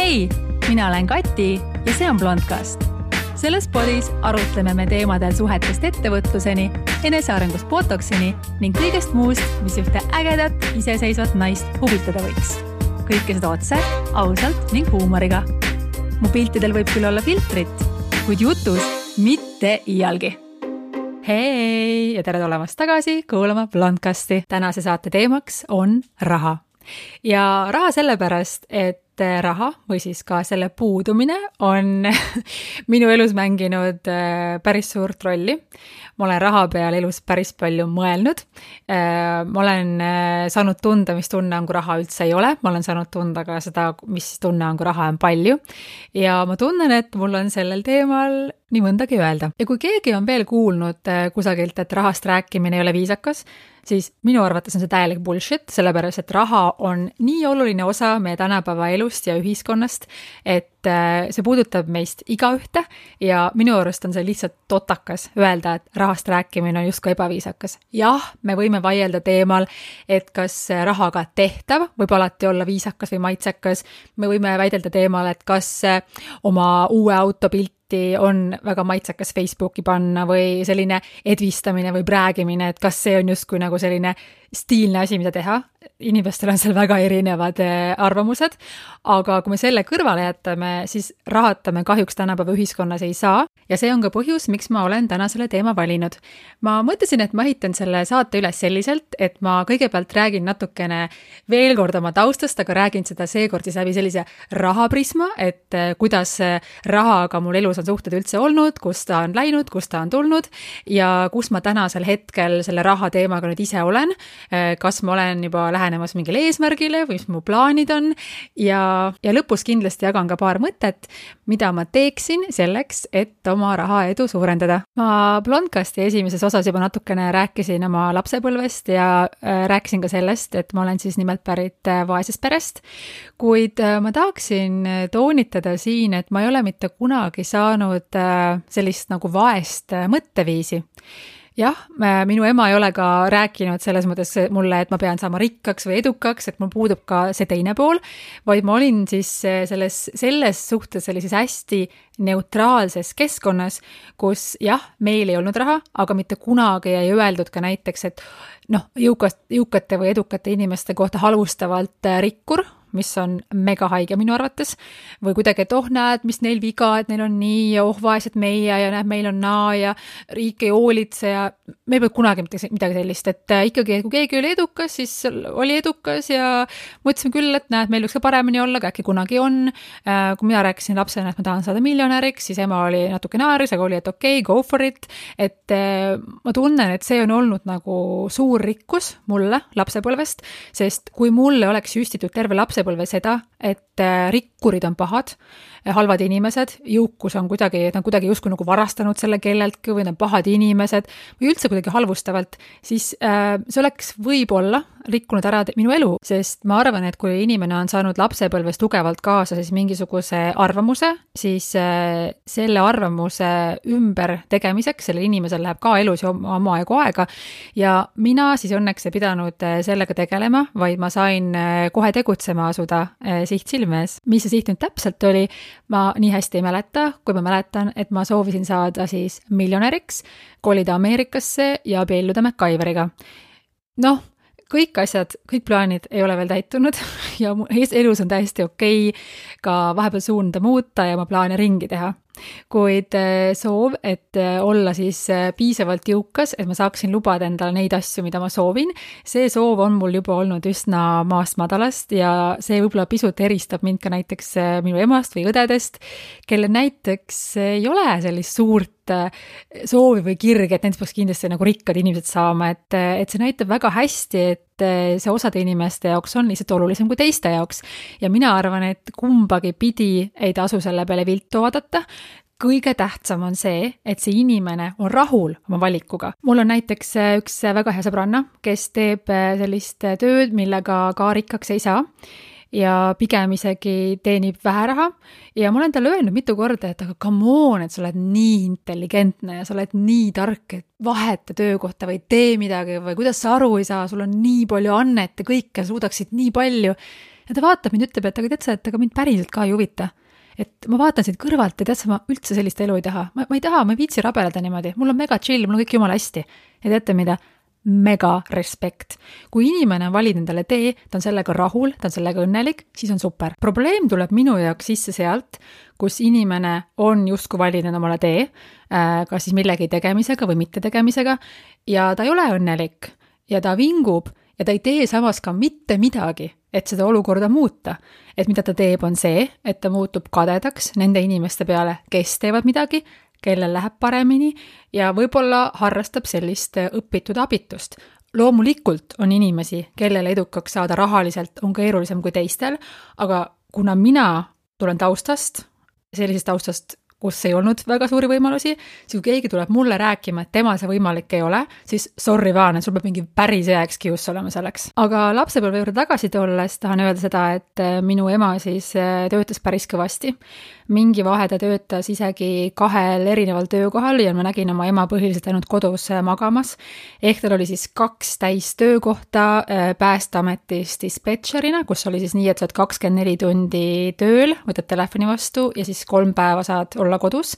Hei, mina olen Kati ja see on Blondcast. Selles podis arutleme me teemadel suhetest ettevõtluseni, enesearengust botoksini ning kõigest muust, mis ühte ägedat, iseseisvat naist huvitada võiks. Kõike seda otse, ausalt ning huumoriga. Mu piltidel võib küll olla filtrit, kuid jutus mitte iialgi. Hei ja tere tulemast tagasi kuulama Blondcasti. Tänase saate teemaks on raha. Ja raha sellepärast, et raha või siis ka selle puudumine on minu elus mänginud päris suurt rolli. Ma olen raha peal elus päris palju mõelnud. Ma olen saanud tunda, mis tunne on, kui raha üldse ei ole. Ma olen saanud tunda ka seda, mis tunne on, kui raha on palju. Ja ma tunnen, et mul on sellel teemal nii mõndagi öelda. Ja kui keegi on veel kuulnud kusagilt, et rahast rääkimine ei ole viisakas, siis minu arvates on see täielik bullshit, sellepärast, et raha on nii oluline osa meie tänapäeva elust ja ühiskonnast, et see puudutab meist igaühte ja minu arust on see lihtsalt totakas öelda, et rahast rääkimine on justkui ebaviisakas. Jah, me võime vaielda teemal, et kas rahaga tehtav võib alati olla viisakas või maitsekas. Me võime väidelda teemal, et kas oma uue autopilti on väga maitsekas Facebooki panna või selline edvistamine või räägimine, et kas see on justkui nagu selline stiilne asi, mida teha. Inimestel on seal väga erinevad arvamused, aga kui me selle kõrvale jätame, siis rahata me kahjuks tänapäeva ühiskonnas ei saa ja see on ka põhjus, miks ma olen täna selle teema valinud. Ma mõtlesin, et ma ehitan selle saate üles selliselt, et ma kõigepealt räägin natukene veel kord oma taustast, aga räägin seda seekord siis läbi sellise rahaprisma, et kuidas rahaga mul elus on suhted üldse olnud, kus ta on läinud, kus ta on tulnud ja kus ma tänasel hetkel selle raha teemaga nüüd ise olen, kas ma olen juba lähenemas mingile eesmärgile või mis mu plaanid on ja lõpus kindlasti jagan ka paar mõtet, mida ma teeksin selleks, et oma raha edu suurendada. Ma Blondcasti esimeses osas juba natukene rääkisin oma lapsepõlvest ja rääkisin ka sellest, et ma olen siis nimelt pärit vaesest perest, kuid ma tahaksin toonitada siin, et ma ei ole mitte kunagi saanud sellist nagu vaest mõtteviisi. Jah, minu ema ei ole ka rääkinud selles mõttes mulle, et ma pean saama rikkaks või edukaks, et mul puudub ka see teine pool, vaid ma olin siis selles suhtes sellises hästi neutraalses keskkonnas, kus jah, meil ei olnud raha, aga mitte kunagi ei öeldud ka näiteks, et jõukate või edukate inimeste kohta halvustavalt rikkur, mis on mega haige minu arvates, või kuidagi, et näed, mis neil viga, et neil on nii ja vaesed meie ja näed, meil on naa ja riik ei hoolitse ja me ei pea kunagi midagi sellist, et ikkagi, kui keegi oli edukas, siis oli edukas ja mõtlesime küll, et näed, meil võiks ka paremini olla, aga äkki kunagi on. Kui mina rääkisin lapsena, et ma tahan saada miljonäriks, siis ema oli natuke naaris, aga oli, et okei, go for it, et ma tunnen, et see on olnud nagu suur rikkus mulle lapsepõlvest, sest kui mulle oleks süstitud terve lapsepõlve seda, et rikkurid on pahad, halvad inimesed, jõukus on kuidagi justkui nagu varastanud selle kelleltki või need pahad inimesed või üldse kuidagi halvustavalt, siis see oleks võib-olla rikkunud ära minu elu, sest ma arvan, et kui inimene on saanud lapsepõlves tugevalt kaasa siis mingisuguse arvamuse, siis selle arvamuse ümber tegemiseks, sellel inimesel läheb ka elus oma aega ja mina siis õnneks ei pidanud sellega tegelema, vaid ma sain kohe tegutsema asuda siht silmes. Mis see siht nüüd täpselt oli, ma nii hästi ei mäleta, kui ma mäletan, et ma soovisin saada siis miljonäriks, kolida Ameerikasse ja abielluda MacGyveriga. Kõik asjad, kõik plaanid ei ole veel täitunud ja elus on täiesti okei ka vahepeal suunda muuta ja oma plaane ringi teha. Kuid soov, et olla siis piisavalt jõukas, et ma saaksin lubada endale neid asju, mida ma soovin, see soov on mul juba olnud üsna maast madalast ja see võib-olla pisut eristab mind ka näiteks minu emast või õdedest, kelle näiteks ei ole sellist suurt soovi või kirge, et nendest peaks kindlasti nagu rikkad inimesed saama, et see näitab väga hästi, et see osade inimeste jaoks on lihtsalt olulisem kui teiste jaoks ja mina arvan, et kumbagi pidi ei tasu selle peale viltu vaadata. Kõige tähtsam on see, et see inimene on rahul oma valikuga. Mul on näiteks üks väga hea sõbranna, kes teeb sellist tööd, millega ka rikkaks ei saa ja pigem isegi teenib vähe raha ja ma olen talle öelnud mitu korda, et aga come on, et sa oled nii intelligentne ja sa oled nii tark, et vaheta töökohta või tee midagi või kuidas sa aru ei saa, sul on nii palju annet ja kõike suudaksid nii palju. Ja ta vaatab mind, ütleb, et aga tead sa, et aga mind päriselt ka ei huvita. Et ma vaatan siit kõrvalt ja tead sa, ma üldse sellist elu ei taha. Ma ei taha, ma ei viitsi rabeleda niimoodi. Mul on mega chill, mul on kõik jumala hästi. Ja teate mida? Mega respekt. Kui inimene on valinud endale tee, ta on sellega rahul, ta on sellega õnnelik, siis on super. Probleem tuleb minu jaoks sisse sealt, kus inimene on justkui valinud omale tee, kas siis millegi tegemisega või mitte tegemisega, ja ta ei ole õnnelik ja ta vingub ja ta ei tee samas ka mitte midagi, et seda olukorda muuta. Et mida ta teeb, on see, et ta muutub kadedaks nende inimeste peale, kes teevad midagi, kellel läheb paremini ja võib-olla harrastab sellist õpitud abitust. Loomulikult on inimesi, kellele edukaks saada rahaliselt on keerulisem kui teistel, aga kuna mina tulen taustast, sellisest taustast, kus ei olnud väga suuri võimalusi, siis kui keegi tuleb mulle rääkima, et temal see võimalik ei ole, siis sorry vaan, et sul peab mingi päris hea excuse olema selleks. Aga lapsepõlve juurde tagasi tulles tahan öelda seda, et minu ema siis töötas päris kõvasti. Mingi vahe ta töötas isegi 2 erineval töökohal ja ma nägin oma ema põhiliselt ainult kodus magamas. Ehk tal oli siis 2 täistöökohta Päästeametis dispetšerina, kus oli siis nii, et sa oled 24 tundi tööl, võtad telefoni vastu ja siis 3 päeva saad olla kodus.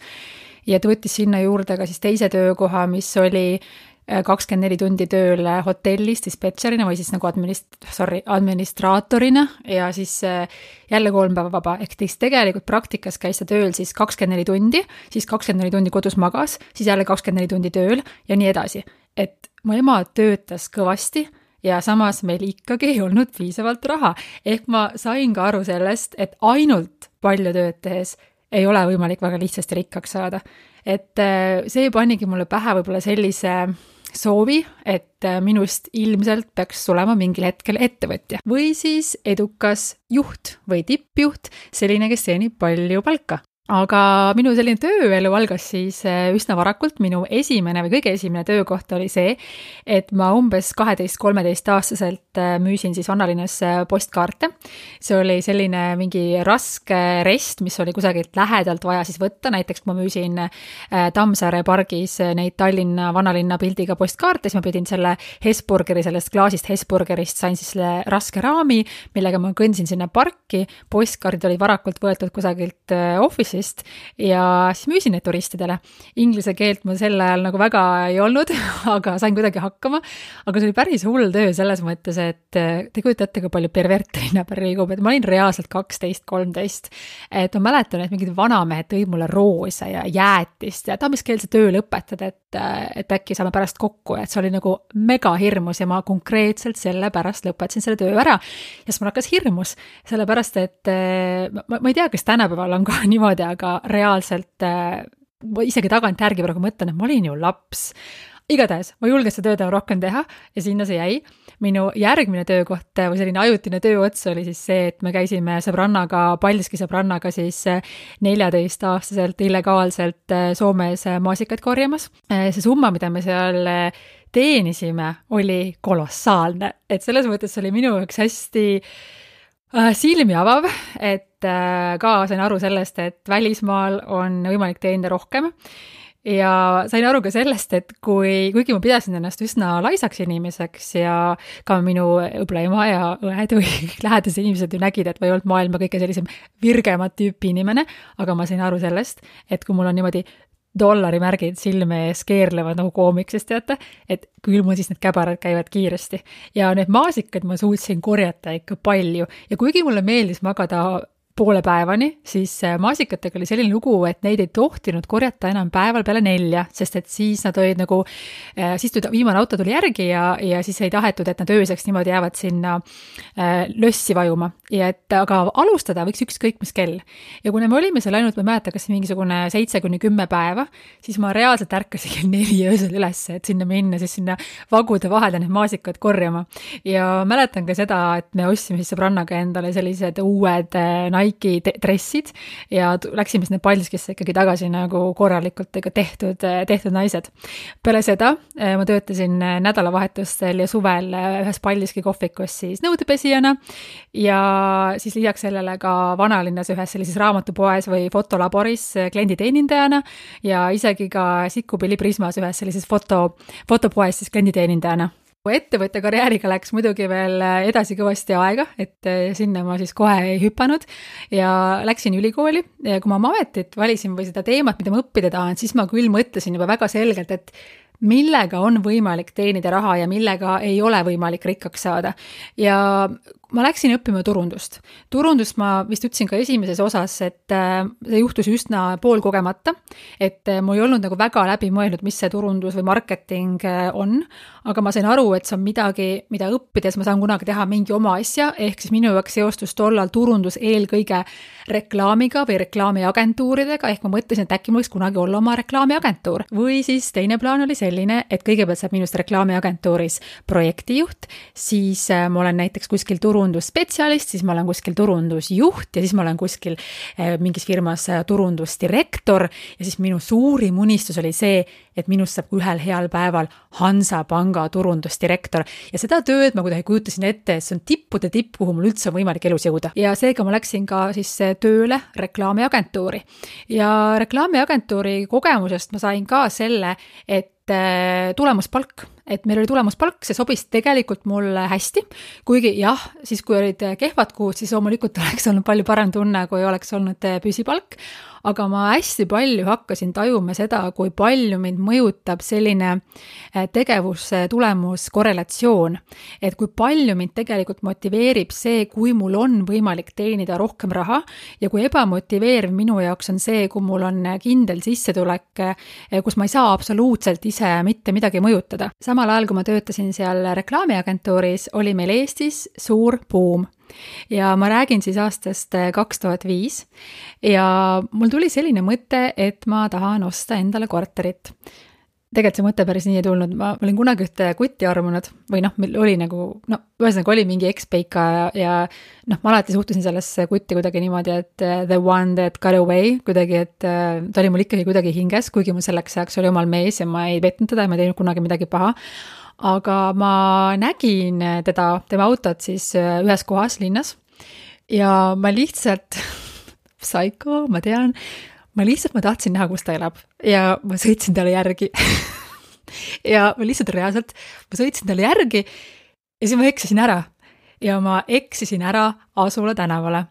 Ja ta võttis sinna juurde ka siis teise töökoha, mis oli 24 tundi tööl hotellis dispetšerina või siis nagu administraatorina ja siis jälle 3 päeva vaba. Ehk tegelikult praktikas käis ta tööl siis 24 tundi, siis 24 tundi kodus magas, siis jälle 24 tundi tööl ja nii edasi. Et mu ema töötas kõvasti ja samas meil ikkagi ei olnud piisavalt raha. Ehk ma sain ka aru sellest, et ainult palju tööd tehes ei ole võimalik väga lihtsasti rikkaks saada. Et see panigi mulle pähe võib-olla sellise soovi, et minust ilmselt peaks tulema mingil hetkel ettevõtja või siis edukas juht või tippjuht, selline, kes teenib palju palka. Aga minu selline tööelu algas siis üsna varakult. Minu esimene või kõige esimene töökoht oli see, et ma umbes 12-13 aastaselt müüsin siis vanalinnas postkaarte. See oli selline mingi raske rest, mis oli kusagilt lähedalt vaja siis võtta. Näiteks kui ma müüsin Tammsaare pargis neid Tallinna vanalinna pildiga postkaarte, siis ma pidin selle Hesburgeri, sellest klaasist Hesburgerist sain siis selle raske raami, millega ma kõndsin sinna parki. Postkaardid olid varakult võetud kusagilt office'ist ja siis müüsin neid turistidele. Inglise keelt ma sel ajal nagu väga ei olnud, aga sain kuidagi hakkama. Aga see oli päris hull töö selles mõttes, et te kujutate ka palju perverte linna peal liigub, et ma olin reaalselt 12-13. Et ma mäletan, et mingid vanamehed tõid mulle roose ja jäätist ja mis keel see töö lõpetada, et äkki saame pärast kokku, et see oli nagu mega hirmus ja ma konkreetselt selle pärast lõpetasin selle töö ära. Ja siis mul hakkas hirmus, sellepärast, et ma ei tea, kas tänapäeval on ka niimoodi, aga reaalselt isegi tagantjärgi praegu mõtlen, et ma olin ju laps. Igatahes, ma julgen seda tööd rohkem teha ja sinna see jäi. Minu järgmine töökoht või selline ajutine tööots oli siis see, et me käisime Paldiski sõbrannaga siis 14-aastaselt illegaalselt Soomes maasikaid korjamas. See summa, mida me seal teenisime, oli kolossaalne. Et selles mõttes oli minu jaoks hästi silmi avav, et ka sain aru sellest, et välismaal on võimalik teenida rohkem. Ja sain aru ka sellest, et kuigi ma pidasin ennast üsna laisaks inimeseks ja ka minu õbla ema ja õed või lähedased inimesed ju nägid, et ma ei olnud maailma kõige sellisem virgemat tüüpi inimene, aga ma sain aru sellest, et kui mul on niimoodi dollarimärgid silme ees keerlevad nagu koomiksest, teate, et küll mul siis need käbarad käivad kiiresti. Ja need maasikad ma suutsin korjata ikka palju ja kuigi mulle meeldis magada poole päevani, siis maasikatega oli selline lugu, et neid ei tohtinud korjata enam päeval peale 4, sest et siis nad olid nagu, siis viimane auto tuli järgi ja siis ei tahetud, et nad ööseks niimoodi jäävad sinna lössi vajuma. Ja aga alustada võiks ükskõik mis kell. Ja kuna me olime seal ainult, ma ei mäleta, kas mingisugune 7-10 päeva, siis ma reaalselt ärkasin kell 4 öösel üles, et sinna minna, siis sinna vagude vahele need maasikad korjama. Ja mäletan ka seda, et me ostsime siis sõbrannaga endale sellised uued Nike dressid ja läksime sinna Paldiskisse ikkagi tagasi nagu korralikult tehtud naised. Peale seda ma töötasin nädalavahetustel ja suvel ühes Paldiski kohvikus siis nõudepesijana ja siis lisaks sellele ka vanalinnas ühes sellises raamatupoes või fotolaboris klienditeenindajana ja isegi ka Sikkupilli Prismas ühes sellises fotopoes siis klienditeenindajana. Ettevõtte karjääriga läks muidugi veel edasi kõvasti aega, et sinna ma siis kohe ei hüpanud ja läksin ülikooli ja kui ma oma ametit valisin või seda teemat, mida ma õppida tahan, siis ma küll mõtlesin juba väga selgelt, et millega on võimalik teenida raha ja millega ei ole võimalik rikkaks saada. Ja ma läksin õppima turundust. Turundust ma vist ütlesin ka esimeses osas, et see juhtus üsna poolkogemata, et mul ei olnud nagu väga läbi mõelnud, mis see turundus või marketing on, aga ma sain aru, et see on midagi, mida õppides ma saan kunagi teha mingi oma asja, ehk siis minu jaoks seostus tollal turundus eelkõige reklaamiga või reklaamiagentuuridega, ehk ma mõtlesin, et äkki mul võiks kunagi olla oma reklaamiagentuur. Või siis teine plaan oli selline, et kõigepealt saab minust reklaamiagentuuris projektijuht, siis ma olen näiteks kuskil turundusspetsialist, siis ma olen kuskil turundusjuht ja siis ma olen kuskil mingis firmas turundusdirektor ja siis minu suurim unistus oli see, et minust saab ühel heal päeval Hansapanga turundusdirektor ja seda tööd ma kuidagi kujutasin ette, et see on tippude tipp, kuhu mul üldse on võimalik elus jõuda. Ja seega ma läksin ka siis tööle reklaamiagentuuri ja reklaamiagentuuri kogemusest ma sain ka selle, et tulemuspalk, et meil oli tulemuspalk, see sobis tegelikult mulle hästi, kuigi jah, siis kui olid kehvad kuud, siis loomulikult oleks olnud palju parem tunne, kui oleks olnud püsipalk, aga ma hästi palju hakkasin tajuma seda, kui palju mind mõjutab selline tegevuse tulemus korrelatsioon, et kui palju mind tegelikult motiveerib see, kui mul on võimalik teenida rohkem raha ja kui ebamotiveeriv minu jaoks on see, kui mul on kindel sissetulek, kus ma ei saa absoluutselt ise mitte midagi mõjutada. Samal ajal, kui ma töötasin seal reklaamiagentuuris, oli meil Eestis suur buum. Ja ma räägin siis aastast 2005 ja mul tuli selline mõte, et ma tahan osta endale korterit. Tegelikult see mõte päris nii ei tulnud, ma olin kunagi ühte kutti armunud või oli nagu, ühesõnaga oli mingi ekspeika ja ma alati suhtusin sellesse kutti kuidagi niimoodi, et the one that got away kuidagi, et ta oli mul ikkagi kuidagi hinges, kuigi mul selleks ajaks oli omal mees ja ma ei petnud teda ja ma ei teinud kunagi midagi paha. Aga ma nägin tema autot siis ühes kohas linnas ja ma lihtsalt, psycho, ma tean, ma tahtsin näha, kus ta elab ja ma sõitsin talle järgi ja ma lihtsalt reaalselt, ma sõitsin talle järgi ja siis ma eksisin ära ja ma eksisin ära Asula tänavale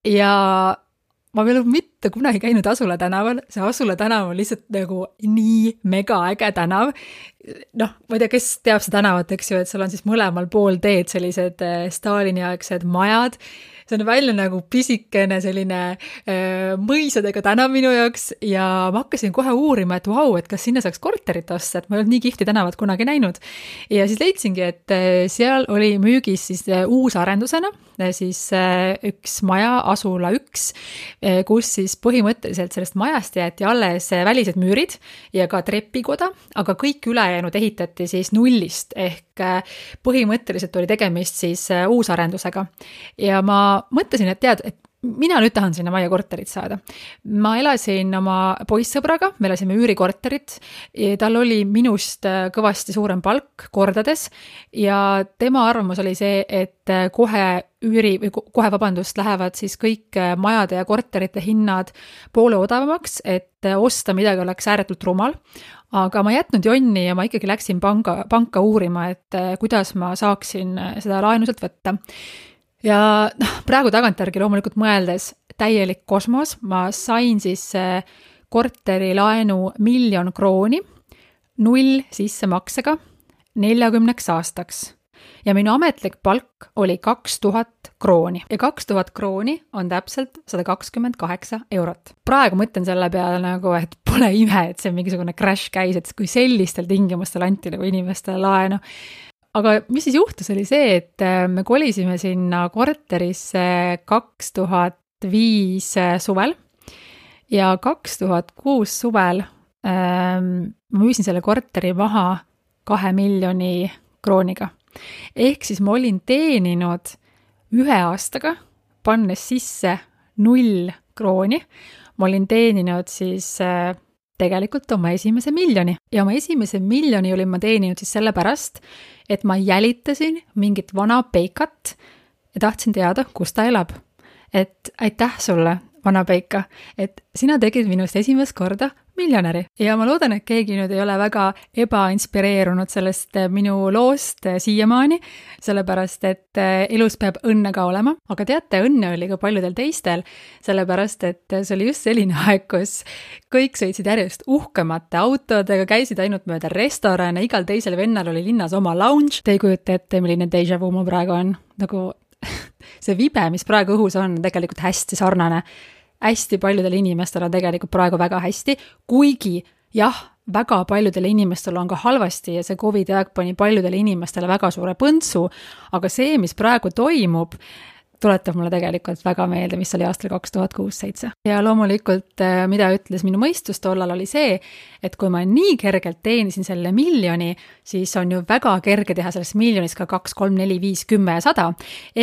ja ma veel mitte kunagi käinud Asula tänaval, see Asula tänav on lihtsalt nagu nii mega äge tänav. Ma ei tea, kes teab see tänavat, eks ju, et seal on siis mõlemal pool teed sellised Stalini-aegsed majad. See on välja nagu pisikene selline mõisadega tänav minu jaoks ja ma hakkasin kohe uurima, et vau, et kas sinna saaks korterit osta, et ma ei olnud nii kihvti tänavat kunagi näinud. Ja siis leidsingi, et seal oli müügis siis uusarendusena siis üks maja, Asula 1, kus siis põhimõtteliselt sellest majast jäeti alles välised müürid ja ka trepikoda, aga kõik ülejäänud ehitati siis nullist ehk põhimõtteliselt oli tegemist siis uusarendusega. Ja ma mõtlesin, et tead, et mina nüüd tahan sinna majja korterit saada. Ma elasin oma poissõbraga, me elasime üürikorterit, tal oli minust kõvasti suurem palk kordades ja tema arvamus oli see, et kohe lähevad siis kõik majade ja korterite hinnad poole odavamaks, et osta midagi oleks ääretult rumal. Aga ma jätnud jonni ja ma ikkagi läksin panka uurima, et kuidas ma saaksin seda laenuselt võtta. Ja praegu tagantjärgi loomulikult mõeldes täielik kosmos, ma sain siis korteri laenu 1 000 000 krooni, 0 sissemaksega 40 aastaks. Ja minu ametlik palk oli 2000 krooni. Ja 2000 krooni on täpselt 128 eurot. Praegu mõtlen selle peale nagu, et pole ime, et see mingisugune crash käis, et kui sellistel tingimustel anti nagu inimestele laenu. Aga mis siis juhtus oli see, et me kolisime sinna korterisse 2005 suvel ja 2006 suvel ma müüsin selle korteri maha 2 miljoni krooniga. Ehk siis ma olin teeninud 1 aastaga, pannes sisse 0 krooni. Ma olin teeninud siis tegelikult oma esimese 1 miljoni. Ja oma esimese 1 miljoni olin ma teeninud siis sellepärast, et ma jälitasin mingit vana peikat ja tahtsin teada, kus ta elab. Et aitäh sulle, vana peika, et sina tegid minust esimest korda miljonäri. Ja ma loodan, et keegi nüüd ei ole väga ebainspireerunud sellest minu loost siiamaani, sellepärast et elus peab õnne ka olema, aga teate, õnne oli ka paljudel teistel, sellepärast et see oli just selline aeg, kus kõik sõitsid järjest uhkemate autodega, käisid ainult mööda restorane, igal teisel vennal oli linnas oma lounge. Te ei kujuta ette, milline déjà vu mul praegu on. Nagu see vibe, mis praegu õhus on tegelikult hästi sarnane. Hästi paljudel inimestel on tegelikult praegu väga hästi, kuigi jah, väga paljudel inimestel on ka halvasti ja see COVID aeg pani paljudele inimestele väga suure põntsu, aga see, mis praegu toimub, tuletab mulle tegelikult väga meelde, mis oli aastal 2006-2007. Ja loomulikult, mida ütles minu mõistus tollal oli see, et kui ma nii kergelt teenisin selle miljoni, siis on ju väga kerge teha sellest miljonist ka 2, 3, 4, 5, 10 ja 100.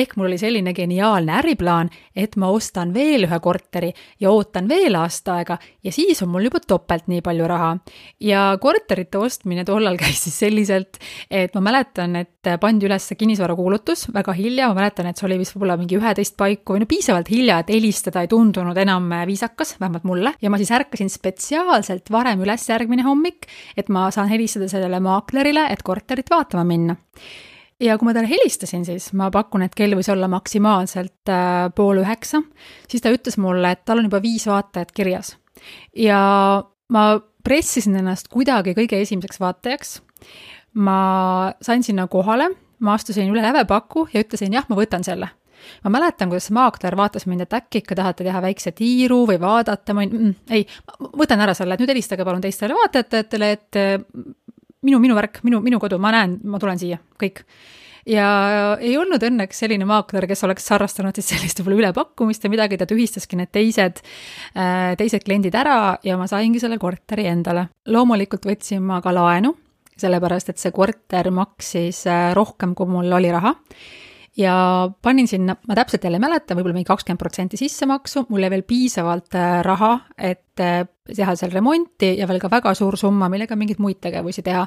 Ehk mul oli selline geniaalne äriplaan, et ma ostan veel ühe korteri ja ootan veel aasta aega ja siis on mul juba topelt nii palju raha. Ja korterite ostmine tollal käis siis selliselt, et ma mäletan, et pandi üles kinnisvara kuulutus väga hilja, ma mäletan, et see oli vist võib-olla mingi 11 paiku või no piisavalt hilja, et helistada ei tundunud enam viisakas, vähemalt mulle. Ja ma siis ärkasin spetsiaalselt varem üles järgmine hommik, et ma saan helistada sellele maaklerile, et korterit vaatama minna. Ja kui ma talle helistasin, siis ma pakun, et kell võis olla maksimaalselt 8:30, siis ta ütles mulle, et tal on juba 5 vaatajat kirjas. Ja ma pressisin ennast kuidagi kõige esimeseks vaatajaks. Ma sain sinna kohale, ma astusin üle lävepaku ja ütlesin, jah, ma võtan selle. Ma mäletan, kuidas maakler vaatas mind, et äkki ikka tahate teha väikse tiiru või vaadata, ei, võtan ära selle, et nüüd helistage palun teistele vaatajatele, et minu värk, minu kodu, ma näen, ma tulen siia, kõik. Ja ei olnud õnneks selline maakler, kes oleks sarrastanud siis sellist võib-olla ülepakkumist ja midagi, ta tühistaski need teised kliendid ära ja ma saingi selle korteri endale. Loomulikult võtsin ma ka laenu, sellepärast, et see korter maksis rohkem, kui mul oli raha. Ja panin sinna, ma täpselt jälle mäletan, võib-olla mingi 20% sissemaksu, mul jäi veel piisavalt raha, et teha seal remonti ja veel ka väga suur summa, millega mingid muid tegevusi teha.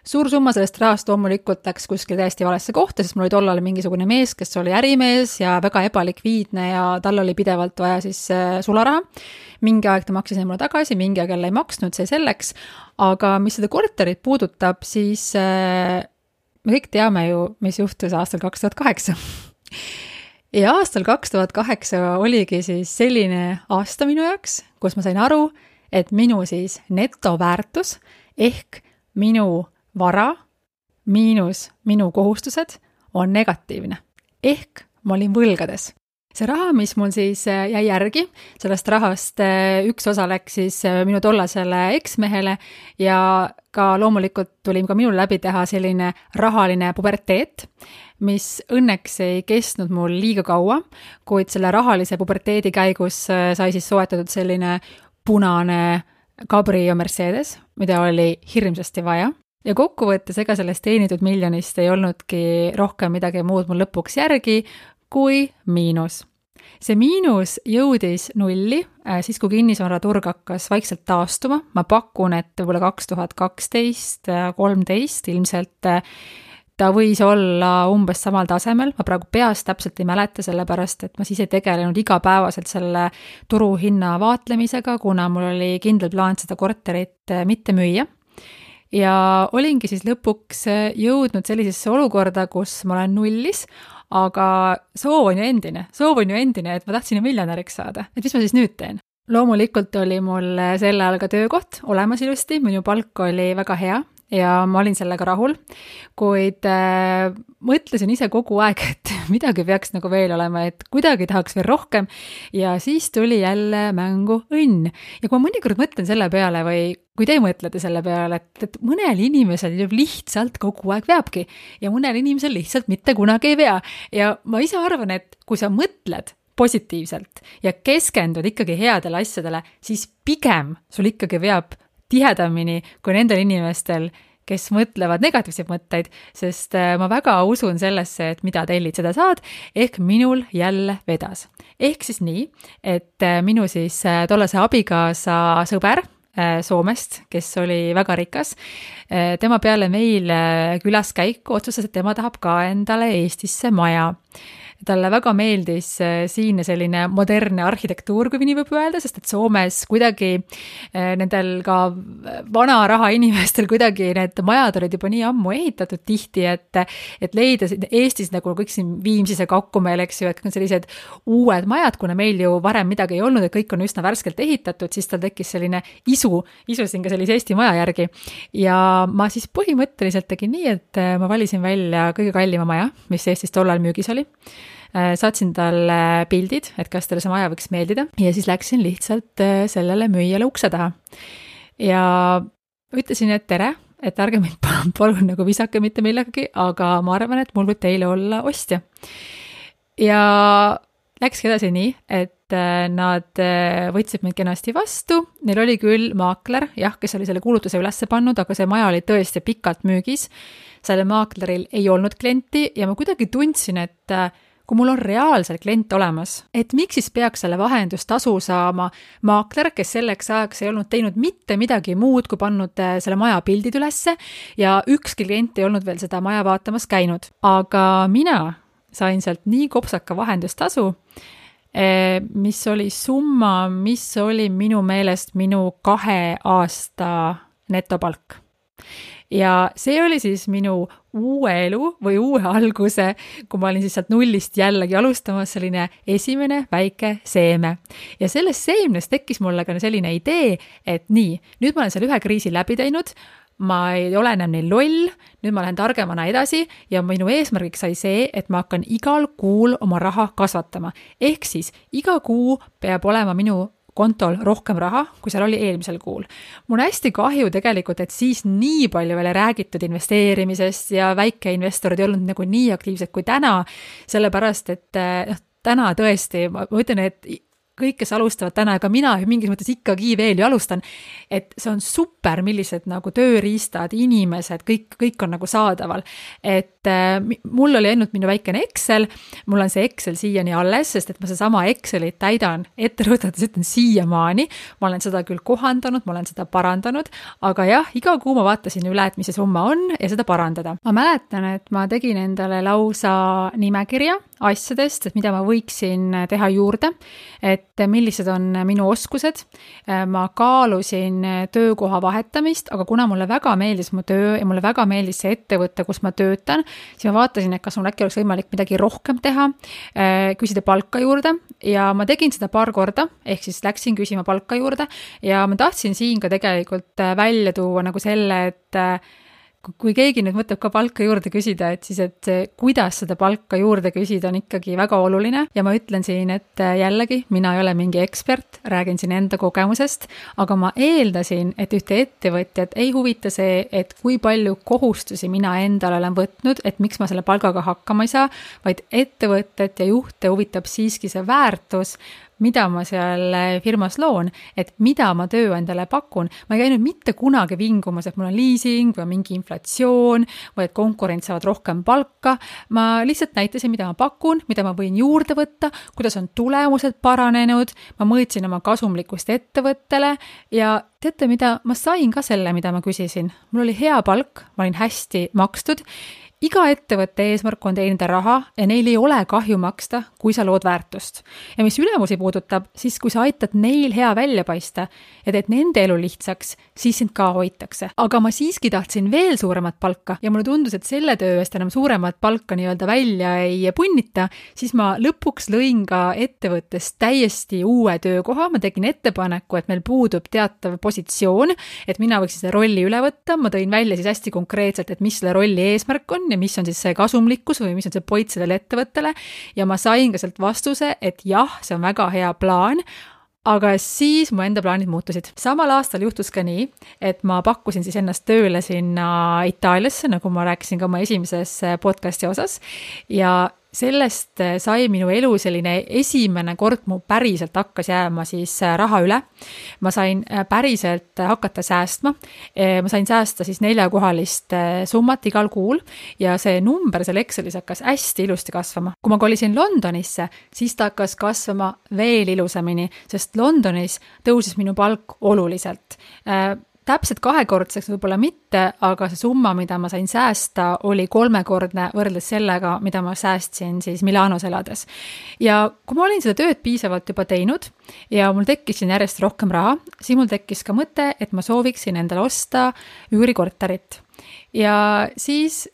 Suur summa sellest rahast loomulikult läks kuskil täiesti valesse kohta, sest mul oli tollal mingisugune mees, kes oli ärimees ja väga ebalikviidne ja tal oli pidevalt vaja siis sularaha. Mingi aeg ta maksis mulle tagasi, mingi aeg jälle ei maksnud, see selleks, aga mis seda korterit puudutab, siis me kõik teame ju, mis juhtus aastal 2008. Ja aastal 2008 oligi siis selline aasta minu jaoks, kus ma sain aru, et minu siis netoväärtus ehk minu vara miinus minu kohustused on negatiivne. Ehk ma olin võlgades. See raha, mis mul siis jäi järgi, sellest rahast üks osa läks siis minu tollasele eksmehele ja ka loomulikult tuli ka minul läbi teha selline rahaline puberteet, mis õnneks ei kestnud mul liiga kaua, kuid selle rahalise puberteedi käigus sai siis soetatud selline punane Cabrio Mercedes, mida oli hirmsasti vaja. Ja kokkuvõttes ega sellest teenitud miljonist ei olnudki rohkem midagi muud mul lõpuks järgi, kui miinus. See miinus jõudis nulli, siis kui kinnisvaraturg hakkas vaikselt taastuma. Ma pakun, et võib-olla 2012-13 ilmselt ta võis olla umbes samal tasemel. Ma praegu peast täpselt ei mäleta, sellepärast, et ma siis ei tegelenud igapäevaselt selle turuhinna vaatlemisega, kuna mul oli kindel plaan seda korterit mitte müüa. Ja olingi siis lõpuks jõudnud sellisesse olukorda, kus ma olen nullis, aga soov on ju endine, et ma tahtsin ju miljonäriks saada. Et mis ma siis nüüd teen? Loomulikult oli mul sel ajal ka töökoht olemas ilusti, minu palk oli väga hea ja ma olin sellega rahul, kuid mõtlesin ise kogu aeg, et midagi peaks nagu veel olema, et kuidagi tahaks veel rohkem ja siis tuli jälle mängu õnn. Ja kui ma mõnikord mõtlen selle peale või kui te mõtlete selle peale, et mõnel inimesel lihtsalt kogu aeg veabki ja mõnel inimesel lihtsalt mitte kunagi ei vea. Ja ma ise arvan, et kui sa mõtled positiivselt ja keskendud ikkagi headele asjadele, siis pigem sul ikkagi veab tihedamini kui nendel inimestel, kes mõtlevad negatiivseid mõtteid, sest ma väga usun sellesse, et mida tellid, seda saad, ehk minul jälle vedas. Ehk siis nii, et minu siis tollase abikaasa sõber Soomest, kes oli väga rikas, tema peale meil külaskäiku otsustas, et tema tahab ka endale Eestisse maja. talle väga meeldis siinne selline modernne arhitektuur, kui nii võib öelda, sest et Soomes kuidagi nendel ka vana raha inimestel kuidagi need majad olid juba nii ammu ehitatud tihti, et leida Eestis nagu kõik siin Viimsis ja Kakkumäel, eks ju, et sellised uued majad, kuna meil ju varem midagi ei olnud, et kõik on üsna värskelt ehitatud, siis tal tekkis selline isusin ka sellise Eesti maja järgi. Ja ma siis põhimõtteliselt tegin nii, et ma valisin välja kõige kallima maja, mis Eestis tollal müügis oli. Saatsin talle pildid, et kas talle see maja võiks meeldida ja siis läksin lihtsalt sellele müüjale ukse taha. Ja ütlesin, et tere, et ärge mind palun nagu visake mitte millegagi, aga ma arvan, et mul võib teile olla ostja. Ja läkski edasi nii, et nad võtsid mind kenasti vastu, neil oli küll maakler, jah, kes oli selle kuulutuse ülesse pannud, aga see maja oli tõesti pikalt müügis, selle maakleril ei olnud klienti ja ma kuidagi tundsin, et kui mul on reaalselt klient olemas, et miks siis peaks selle vahendustasu saama maakler, kes selleks ajaks ei olnud teinud mitte midagi muud, kui pannud selle maja pildid ülesse ja ükski klient ei olnud veel seda maja vaatamas käinud. Aga mina sain sealt nii kopsaka vahendustasu, mis oli summa, mis oli minu meelest minu 2 aasta netopalk. Ja see oli siis minu uue elu või uue alguse, kui ma olin siis sealt nullist jällegi alustamas selline esimene väike seeme. Ja sellest seemnest tekkis mulle ka selline idee, et nii, nüüd ma olen seal ühe kriisi läbi teinud, ma ei ole enam nii loll, nüüd ma lähen targemana edasi ja minu eesmärgiks sai see, et ma hakkan igal kuul oma raha kasvatama. Ehk siis iga kuu peab olema minu kontol rohkem raha, kui seal oli eelmisel kuul. Mul on hästi kahju tegelikult, et siis nii palju veel räägitud investeerimisest ja väikeinvestorid ei olnud nagu nii aktiivsed kui täna, sellepärast, et täna tõesti, ma ütlen, et kõik, kes alustavad täna, aga mina mingis mõttes ikkagi veel ju alustan, et see on super, millised nagu tööriistad, inimesed, kõik on nagu saadaval. Et mul oli ainult minu väikene Excel, mul on see Excel siiani alles, sest et ma seesama Excelit täidan etterõõtades, ütlen siiamaani, ma olen seda küll kohandanud, ma olen seda parandanud, aga jah, iga kuu ma vaatasin üle, et mis see summa on ja seda parandada. Ma mäletan, et ma tegin endale lausa nimekirja asjadest, et mida ma võiksin teha juurde, et millised on minu oskused. Ma kaalusin töökoha vahetamist, aga kuna mulle väga meeldis mu töö ja mulle väga meeldis see ettevõte, kus ma töötan, siis ma vaatasin, et kas mul äkki oleks võimalik midagi rohkem teha, küsida palka juurde ja ma tegin seda paar korda, ehk siis läksin küsima palka juurde ja ma tahtsin siin ka tegelikult välja tuua nagu selle, et kui keegi nüüd mõtleb ka palka juurde küsida, et siis, et kuidas seda palka juurde küsida on ikkagi väga oluline ja ma ütlen siin, et jällegi mina ei ole mingi ekspert, räägin siin enda kogemusest, aga ma eeldasin, et ühte ettevõtjat ei huvita see, et kui palju kohustusi mina endale olen võtnud, et miks ma selle palgaga hakkama ei saa, vaid ettevõtjat ja juhte huvitab siiski see väärtus, mida ma seal firmas loon, et mida ma tööandjale pakun. Ma ei käinud mitte kunagi vingumas, et mul on leasing või mingi inflatsioon või et konkurent saavad rohkem palka. Ma lihtsalt näitasin, mida ma pakun, mida ma võin juurde võtta, kuidas on tulemused paranenud, ma mõõtsin oma kasumlikkust ettevõttele ja teate mida, ma sain ka selle, mida ma küsisin. Mul oli hea palk, ma olin hästi makstud. Iga ettevõtte eesmärk on teenida raha ja neil ei ole kahju maksta, kui sa lood väärtust. Ja mis ülemusi puudutab, siis kui sa aitad neil hea välja paista ja teed nende elu lihtsaks, siis sind ka hoitakse. Aga ma siiski tahtsin veel suuremat palka ja mulle tundus, et selle töö eest enam suuremat palka nii-öelda välja ei punnita, siis ma lõpuks lõin ka ettevõttes täiesti uue töökoha. Ma tegin ettepaneku, et meil puudub teatav positsioon, et mina võiksin selle rolli üle võtta. Ma tõin välja siis hästi konkreetselt, et mis selle rolli eesmärk on ja mis on siis see kasumlikkus või mis on see point sellele ettevõttele ja ma sain ka sealt vastuse, et jah, see on väga hea plaan, aga siis mu enda plaanid muutusid. Samal aastal juhtus ka nii, et ma pakkusin siis ennast tööle sinna Itaaliasse, nagu ma rääkisin ka oma esimeses podcasti osas ja sellest sai minu elu selline esimene kord mu päriselt hakkas jääma siis raha üle. Ma sain päriselt hakata säästma. Ma sain säästa siis 4-kohalist summat igal kuul ja see number seal Excelis hakkas hästi ilusti kasvama. Kui ma kolisin Londonisse, siis ta hakkas kasvama veel ilusamini, sest Londonis tõusis minu palk oluliselt. täpselt 2-kordseks võib-olla mitte, aga see summa, mida ma sain säästa, oli 3-kordne võrreldes sellega, mida ma säästsin siis Milanos elades. Ja kui ma olin seda tööd piisavalt juba teinud ja mul tekkis siin järjest rohkem raha, siis mul tekkis ka mõte, et ma sooviksin endale osta üürikorterit. Ja siis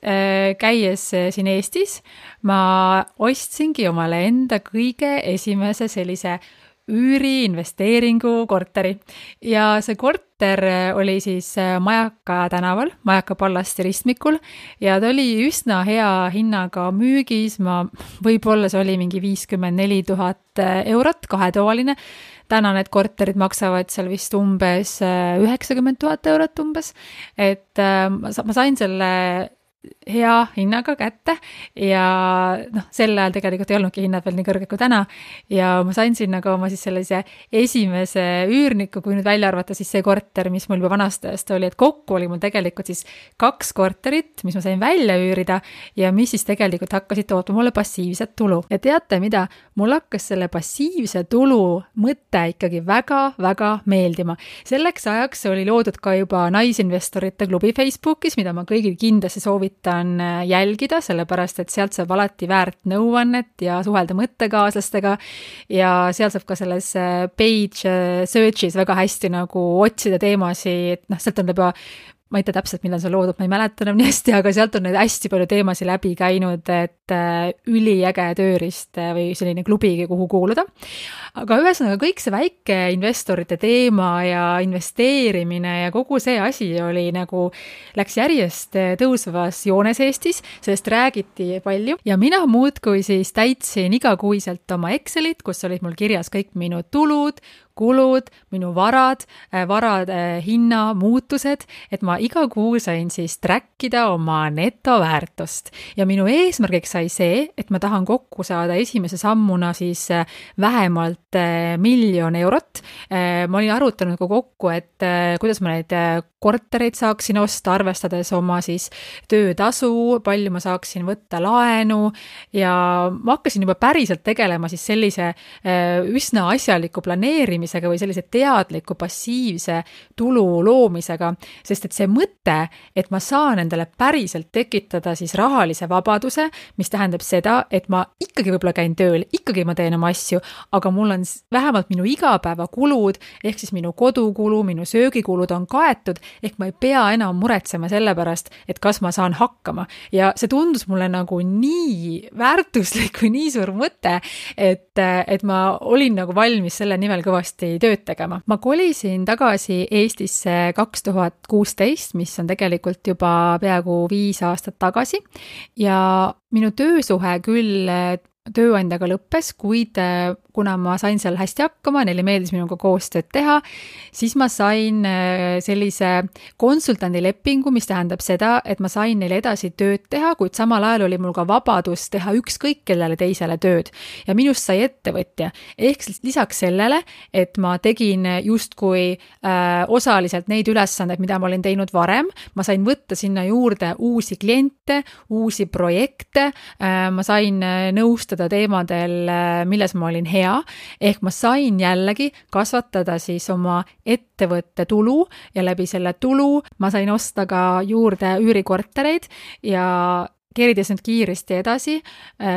käies siin Eestis, ma ostsingi omale enda kõige esimese sellise üüriinvesteeringu korteri. Ja see korter oli siis Majaka tänaval, Majaka Pallasti ristmikul ja ta oli üsna hea hinnaga müügis, võib-olla see oli mingi 54 000 eurot, 2-toaline. Täna need korterid maksavad seal vist umbes 90 000 eurot umbes, et ma sain selle hea hinnaga kätte ja sel ajal tegelikult ei olnudki hinnad veel nii kõrged kui täna ja ma sain sinna ka oma siis sellise esimese üürniku, kui nüüd välja arvata siis see korter, mis mul juba vanastajast oli, et kokku oli mul tegelikult siis 2 korterit, mis ma sain välja üürida ja mis siis tegelikult hakkasid tootma mulle passiivset tulu. Ja teate mida? Mul hakkas selle passiivse tulu mõte ikkagi väga-väga meeldima. Selleks ajaks oli loodud ka juba naisinvestorite klubi Facebookis, mida ma kõigil kindlasti soovitan jälgida, sellepärast et sealt saab alati väärt nõuannet ja suhelda mõttekaaslastega ja seal saab ka selles page search'is väga hästi nagu otsida teemasid, sealt on juba ma ei tea täpselt, millal see loodud, ma ei mäleta enam nii hästi, aga sealt on neid hästi palju teemasid läbi käinud, et üliäge tööriist või selline klubigi, kuhu kuuluda. Aga ühesõnaga kõik see väike investorite teema ja investeerimine ja kogu see asi oli nagu, läks järjest tõusvas joones Eestis, sellest räägiti palju ja mina muudkui siis täitsin igakuiselt oma Excelit, kus olid mul kirjas kõik minu tulud, kulud, minu varade hinna muutused, et ma iga kuu sain siis trackida oma netoväärtust. Ja minu eesmärgiks sai see, et ma tahan kokku saada esimese sammuna siis vähemalt 1 000 000 eurot. Ma olin arutanud kokku, et kuidas ma neid kortereid saaksin osta, arvestades oma siis töötasu, palju ma saaksin võtta laenu ja ma hakkasin juba päriselt tegelema siis sellise üsna asjaliku planeerimisega või sellise teadliku passiivse tulu loomisega, sest et see mõte, et ma saan endale päriselt tekitada siis rahalise vabaduse, mis tähendab seda, et ma ikkagi võib-olla käin tööl, ikkagi ma teen oma asju, aga mul on vähemalt minu igapäevakulud, ehk siis minu kodukulu, minu söögikulud on kaetud, ehk ma ei pea enam muretsema selle pärast, et kas ma saan hakkama. Ja see tundus mulle nagu nii väärtuslik või nii suur mõte, et ma olin nagu valmis selle nimel kõvasti tööd tegema. Ma kolisin tagasi Eestisse 2016, mis on tegelikult juba peaaegu 5 aastat tagasi ja minu töösuhe küll tööandjaga lõppes, kuid kuna ma sain seal hästi hakkama, neile meeldis minuga koostööd teha, siis ma sain sellise konsultandilepingu, mis tähendab seda, et ma sain neile edasi tööd teha, kuid samal ajal oli mul ka vabadus teha ükskõik kellele teisele tööd. Ja minust sai ettevõtja. Ehk lisaks sellele, et ma tegin justkui osaliselt neid ülesandeid, mida ma olin teinud varem, ma sain võtta sinna juurde uusi kliente, uusi projekte, ma sain nõustada teemadel, milles ma olin hea, ehk ma sain jällegi kasvatada siis oma ettevõtte tulu ja läbi selle tulu ma sain osta ka juurde üürikortereid ja keerides nüüd kiiresti edasi,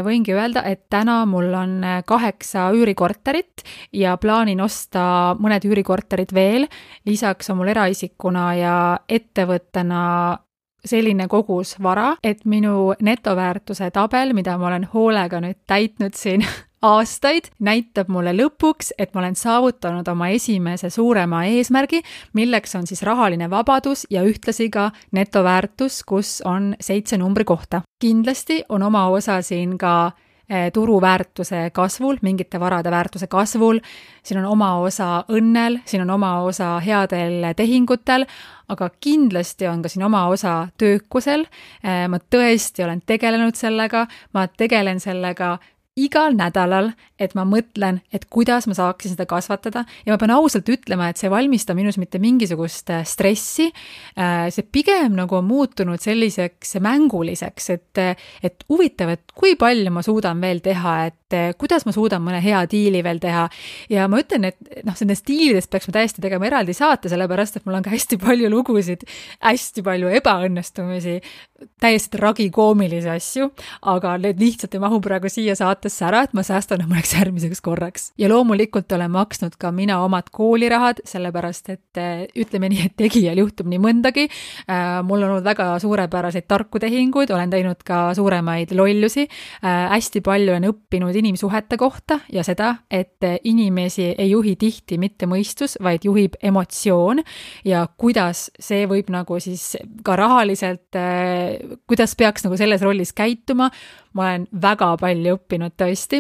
võingi öelda, et täna mul on 8 üürikorterit ja plaanin osta mõned üürikorterid veel, lisaks on mul eraisikuna ja ettevõttena selline kogus vara, et minu netoväärtuse tabel, mida ma olen hoolega nüüd täitnud siin aastaid, näitab mulle lõpuks, et ma olen saavutanud oma esimese suurema eesmärgi, milleks on siis rahaline vabadus ja ühtlasi ka netoväärtus, kus on 7 numbri kohta. Kindlasti on oma osa siin ka turuväärtuse kasvul, mingite varade väärtuse kasvul, siin on oma osa õnnel, siin on oma osa headel tehingutel, aga kindlasti on ka siin oma osa töökusel. Ma tõesti olen tegelenud sellega, ma tegelen sellega igal nädalal, et ma mõtlen, et kuidas ma saaksin seda kasvatada ja ma pean ausalt ütlema, et see ei valmista minus mitte mingisugust stressi. See pigem nagu on muutunud selliseks mänguliseks, et huvitav, et kui palju ma suudan veel teha, et kuidas ma suudan mõne hea diili veel teha. Ja ma ütlen, et nendest diilidest peaks ma täiesti tegema eraldi saate, sellepärast, et mul on ka hästi palju lugusid, hästi palju ebaõnnestumisi, täiesti tragikoomilisi asju, aga need lihtsalt ei mahu praegu siia saatesse ära, et ma säästan mõneks järgmiseks korraks. Ja loomulikult olen maksnud ka mina omad koolirahad, sellepärast, et ütleme nii, et tegijal juhtub nii mõndagi. Mul on olnud väga suurepäraseid tarku tehinguid, olen teinud ka suuremaid lollusi. Hästi palju olen õppinud inimsuhete kohta ja seda, et inimesi ei juhi tihti mitte mõistus, vaid juhib emotsioon ja kuidas see võib nagu siis ka rahaliselt kuidas peaks nagu selles rollis käituma. Ma olen väga palju õppinud tõesti.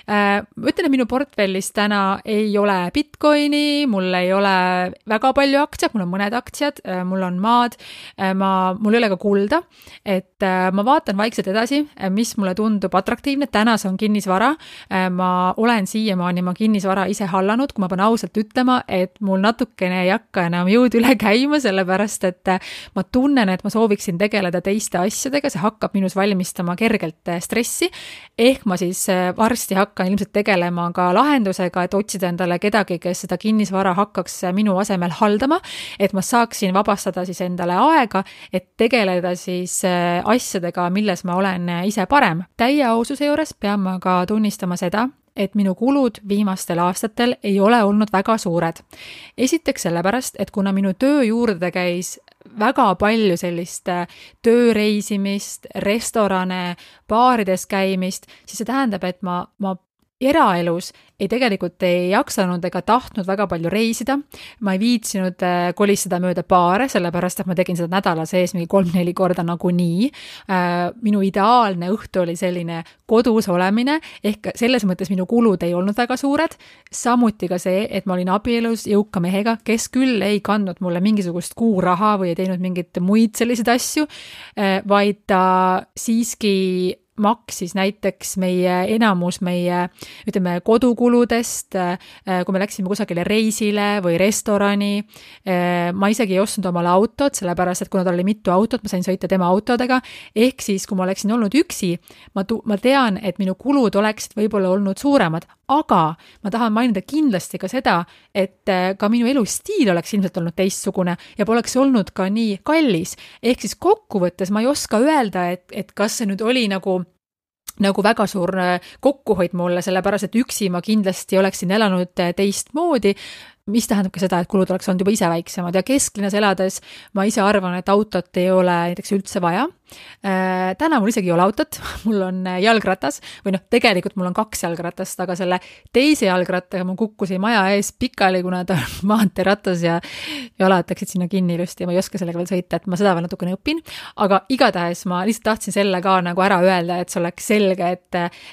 Ütlen, et minu portfellis täna ei ole Bitcoini, mul ei ole väga palju aktsiad, mul on mõned aktsiad, mul on maad, mul ei ole ka kulda, et ma vaatan vaikselt edasi, mis mulle tundub atraktiivne. Täna see on kinnisvara. Ma olen siiamaani kinnisvara ise hallanud, kui ma pean ausalt ütlema, et mul natukene ei hakka enam jõud üle käima, sellepärast, et ma tunnen, et ma sooviksin tegeleda teiste asjadega, see hakkab minus valmistama kergelt stressi, ehk ma siis varsti hakkan ilmselt tegelema ka lahendusega, et otsida endale kedagi, kes seda kinnisvara hakkaks minu asemel haldama, et ma saaksin vabastada siis endale aega, et tegeleda siis asjadega, milles ma olen ise parem. Täie aususe juures pean ma ka tunnistama seda, et minu kulud viimastel aastatel ei ole olnud väga suured. Esiteks sellepärast, et kuna minu töö juurde käis väga palju sellist tööreisimist, restorane, baarides käimist, siis see tähendab, et ma eraelus tegelikult ei jaksanud ega tahtnud väga palju reisida. Ma ei viitsinud kolistada mööda baare, sellepärast, et ma tegin seda nädala sees mingi 3-4 korda nagunii. Minu ideaalne õhtu oli selline kodus olemine, ehk selles mõttes minu kulud ei olnud väga suured. Samuti ka see, et ma olin abielus jõuka mehega, kes küll ei kandnud mulle mingisugust kuuraha või ei teinud mingit muid selliseid asju, vaid ta siiski maksis näiteks enamus meie ütleme, kodukuludest, kui me läksime kusagile reisile või restorani. Ma isegi ei ostnud omale autot, sellepärast, et kuna tal oli mitu autot, ma sain sõita tema autodega. Ehk siis, kui ma oleksin olnud üksi, ma tean, et minu kulud oleksid võib-olla olnud suuremad, aga ma tahan mainida kindlasti ka seda, et ka minu elustiil oleks ilmselt olnud teistsugune ja poleks olnud ka nii kallis. Ehk siis kokkuvõttes ma ei oska öelda, et kas see nüüd oli nagu väga suur kokkuhoid mulle, sellepärast, et üksi ma kindlasti oleksin elanud teistmoodi, mis tähendab ka seda, et kulud oleks olnud juba ise väiksemad ja kesklinnas elades ma ise arvan, et autot ei ole näiteks üldse vaja. Täna mul isegi ei ole autot, mul on jalgratas või tegelikult mul on 2 jalgratast, aga selle teise jalgrattaga ma kukkusin maja ees pikali, kuna ta on maanteeratas ja jalad läksid sinna kinni ilusti ja ma ei oska sellega veel sõita, et ma seda veel natukene õpin, aga igatahes ma lihtsalt tahtsin selle ka nagu ära öelda, et see oleks selge,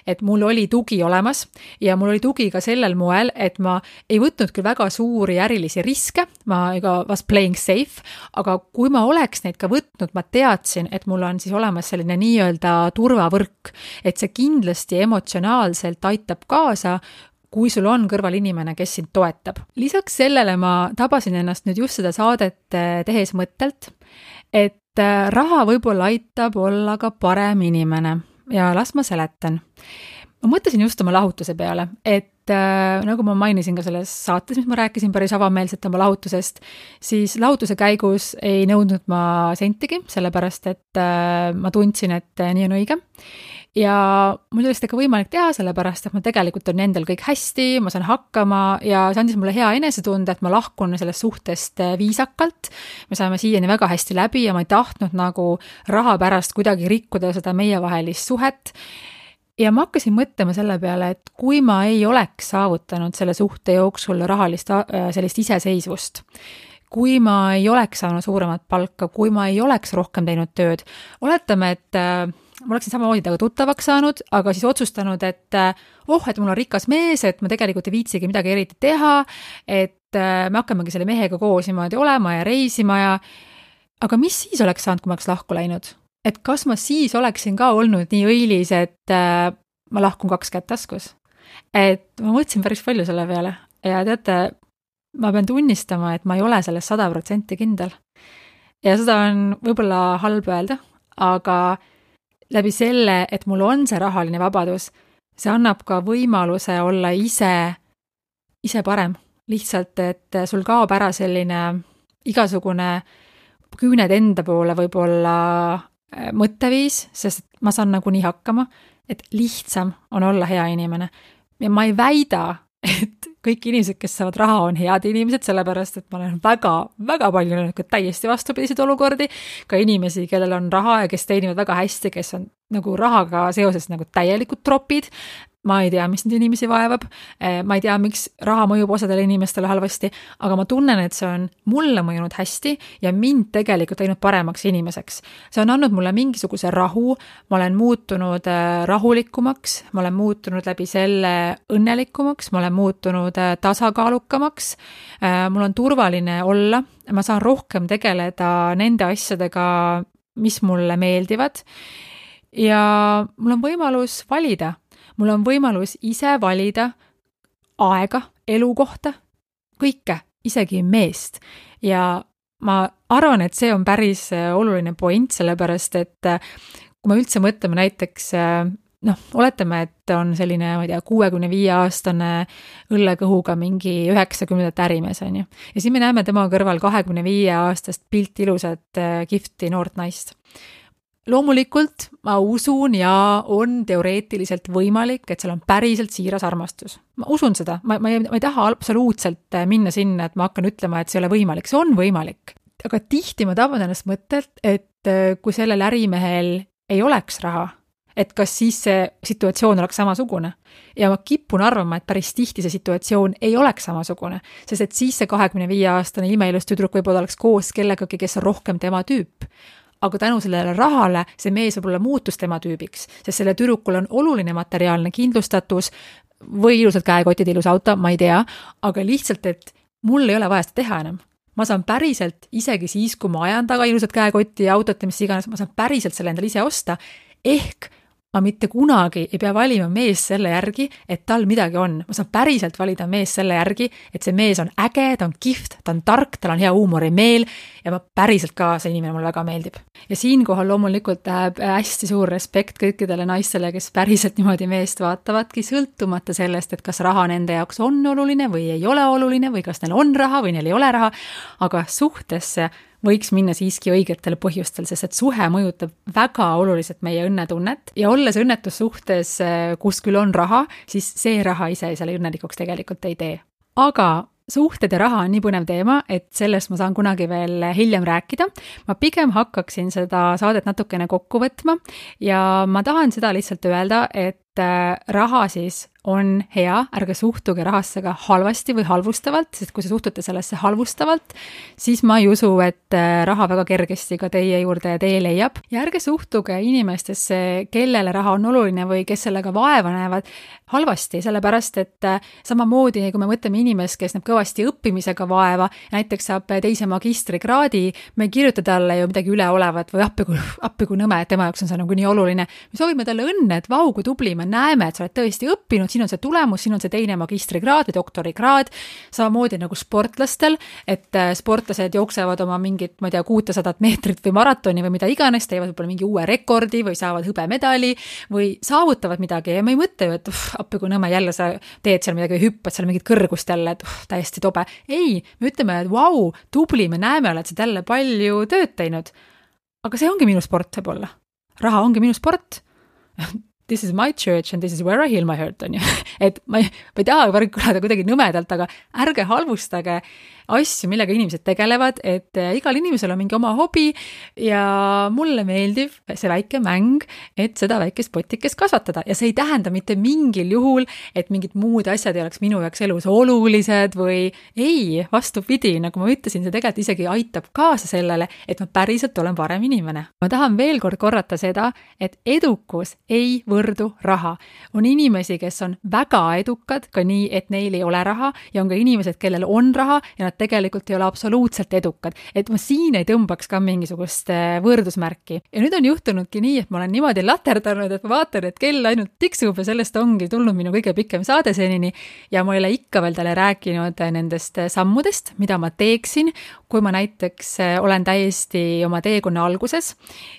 et mul oli tugi olemas ja mul oli tugi ka sellel moel, et ma ei võtnud küll väga suuri ärilisi riske, ma was playing safe, aga kui ma oleks neid ka võtnud, ma teadsin, et mul on siis olemas selline nii-öelda turvavõrk, et see kindlasti emotsionaalselt aitab kaasa, kui sul on kõrval inimene, kes sind toetab. Lisaks sellele ma tabasin ennast nüüd just seda saadet tehes mõttelt, et raha võib-olla aitab olla ka parem inimene ja las ma seletan. Ma mõtlesin just oma lahutuse peale, et nagu ma mainisin ka selles saates, mis ma rääkisin päris avameelselt oma lahutusest, siis lahutuse käigus ei nõudnud ma sentigi, sellepärast, et ma tundsin, et nii on õige. Ja mul oli seda ka võimalik teha, sellepärast, et ma tegelikult on endal kõik hästi, ma saan hakkama ja see andis mulle hea enesetunde, et ma lahkun sellest suhtest viisakalt. Me saame siiani väga hästi läbi ja ma ei tahtnud nagu raha pärast kuidagi rikkuda seda meievahelist suhet. Ja ma hakkasin mõtlema selle peale, et kui ma ei oleks saavutanud selle suhte jooksul rahalist sellist iseseisvust, kui ma ei oleks saanud suuremat palka, kui ma ei oleks rohkem teinud tööd, oletame, et ma oleksin samamoodi temaga tuttavaks saanud, aga siis otsustanud, et et mul on rikas mees, et ma tegelikult ei viitsigi midagi eriti teha, et me hakkamegi selle mehega koos niimoodi olema ja reisima aga mis siis oleks saanud, kui ma oleks lahku läinud? Et kas ma siis oleksin ka olnud nii õilis, et ma lahkun 2 kätt taskus. Et ma mõtlesin päris palju selle peale ja teate, ma pean tunnistama, et ma ei ole selles 100% kindel. Ja seda on võib-olla halb öelda, aga läbi selle, et mul on see rahaline vabadus, see annab ka võimaluse olla ise parem. Lihtsalt, et sul kaob ära selline igasugune küüned enda poole võib-olla mõtteviis, sest ma saan nagunii hakkama, et lihtsam on olla hea inimene. Ja ma ei väida, et kõik inimesed, kes saavad raha, on head inimesed, sellepärast, et ma olen väga palju näinud täiesti vastupidiseid olukordi, ka inimesi, kellel on raha ja kes teenivad väga hästi, kes on nagu rahaga seoses nagu täielikud tropid. Ma ei tea, mis neid inimesi vaevab, ma ei tea, miks raha mõjub osadele inimestele halvasti, aga ma tunnen, et see on mulle mõjunud hästi ja mind tegelikult teinud paremaks inimeseks. See on andnud mulle mingisuguse rahu, ma olen muutunud rahulikumaks, ma olen muutunud läbi selle õnnelikumaks, ma olen muutunud tasakaalukamaks, mul on turvaline olla, ma saan rohkem tegeleda nende asjadega, mis mulle meeldivad ja mul on võimalus valida. Mul on võimalus ise valida aega, elukohta, kõike, isegi meest. Ja ma arvan, et see on päris oluline point, sellepärast, et kui me üldse mõtleme näiteks, oletame, et on selline, ma ei tea, 65-aastane õllekõhuga mingi 90 ärimees, on ju. Ja siis me näeme tema kõrval 25-aastast pilti ilusat kihvti noort naist. Loomulikult ma usun ja on teoreetiliselt võimalik, et seal on päriselt siiras armastus. Ma usun seda, ma ei taha absoluutselt minna sinna, et ma hakkan ütlema, et see ei ole võimalik, see on võimalik. Aga tihti ma taban ennast mõttelt, et kui sellel ärimehel ei oleks raha, et kas siis see situatsioon oleks samasugune. Ja ma kipun arvama, et päris tihti see situatsioon ei oleks samasugune, sest et siis see 25-aastane imeilus tüdruk võib-olla oleks koos kellegagi, kes on rohkem tema tüüp. Aga tänu sellele rahale see mees võib-olla muutus tema tüübiks, sest selle tüdrukul on oluline materiaalne kindlustatus või ilusad käekotid, ilus auto, ma ei tea, aga lihtsalt, et mul ei ole vaja seda teha enam. Ma saan päriselt, isegi siis, kui ma ajan taga ilusad käekotti ja autot ja mis iganes, ma saan päriselt selle endale ise osta, ehk ma mitte kunagi ei pea valima mees selle järgi, et tal midagi on. Ma saan päriselt valida mees selle järgi, et see mees on äge, ta on kihvt, ta on tark, tal on hea huumorimeel ja ma päriselt ka see inimene mulle väga meeldib. Ja siinkohal loomulikult läheb hästi suur respekt kõikidele naistele, kes päriselt niimoodi meest vaatavadki, sõltumata sellest, et kas raha nende jaoks on oluline või ei ole oluline või kas neil on raha või neil ei ole raha, aga suhtesse võiks minna siiski õigetel põhjustel, sest et suhe mõjutab väga oluliselt meie õnnetunnet ja olles õnnetussuhtes, kus küll on raha, siis see raha ise selle õnnelikuks tegelikult ei tee. Aga suhted ja raha on nii põnev teema, et sellest ma saan kunagi veel hiljem rääkida. Ma pigem hakkaksin seda saadet natukene kokku võtma ja ma tahan seda lihtsalt öelda, et raha siis on hea, ärge suhtuge rahasse ka halvasti või halvustavalt, sest kui te suhtute sellesse halvustavalt, siis ma ei usu, et raha väga kergesti ka teie juurde tee leiab. Ja ärge suhtuge inimestesse, kellele raha on oluline või kes sellega vaeva näevad halvasti, sellepärast et samamoodi, kui me mõtleme inimest, kes näeb kõvasti õppimisega vaeva, näiteks saab 2. magistrikraadi, me ei kirjuta talle ju midagi üleolevat või appi kui nõme, et tema jaoks on see nagu nii oluline. Me soovime talle õnne, et vau, kui tubli, me näeme, et sa oled tõesti õppinud, siin on see tulemus, siin on see 2. magistrikraad või doktorikraad, samamoodi nagu sportlastel, et sportlased jooksevad oma mingit, ma ei tea, 600 meetrit või maratoni või mida iganes, teevad võib-olla mingi uue rekordi või saavad hõbemedali või saavutavad midagi ja me ei mõtle ju, et appi kui nõme, jälle sa teed seal midagi või hüppad seal mingit kõrgust jälle, et täiesti tobe. Ei, me ütleme, et vau, tubli, me näeme, oled sa jälle palju tööd teinud. Aga see ongi minu sport võib-olla. Raha ongi minu sport. This is my church and this is where I heal my hurt, on ju. Et ma ei taha kõlada kuidagi nõmedalt, aga ärge halvustage asju, millega inimesed tegelevad, et igal inimesel on mingi oma hobi ja mulle meeldib see väike mäng, et seda väikest potikest kasvatada ja see ei tähenda mitte mingil juhul, et mingid muud asjad ei oleks minu jaoks elus olulised või ei, vastupidi, nagu ma ütlesin, see tegelikult isegi aitab kaasa sellele, et ma päriselt olen parem inimene. Ma tahan veel kord korrata seda, et edukus ei võrdu raha. On inimesi, kes on väga edukad, ka nii, et neil ei ole raha ja on ka inimesed, kellel on raha ja nad tegelikult ei ole absoluutselt edukad. Et ma siin ei tõmbaks ka mingisugust võrdusmärki. Ja nüüd on juhtunudki nii, et ma olen niimoodi laterdanud, et ma vaatan, et kell ainult tiksub ja sellest ongi tulnud minu kõige pikem saade senini ja ma ei ole ikka veel talle rääkinud nendest sammudest, mida ma teeksin, kui ma näiteks olen täiesti oma teekonna alguses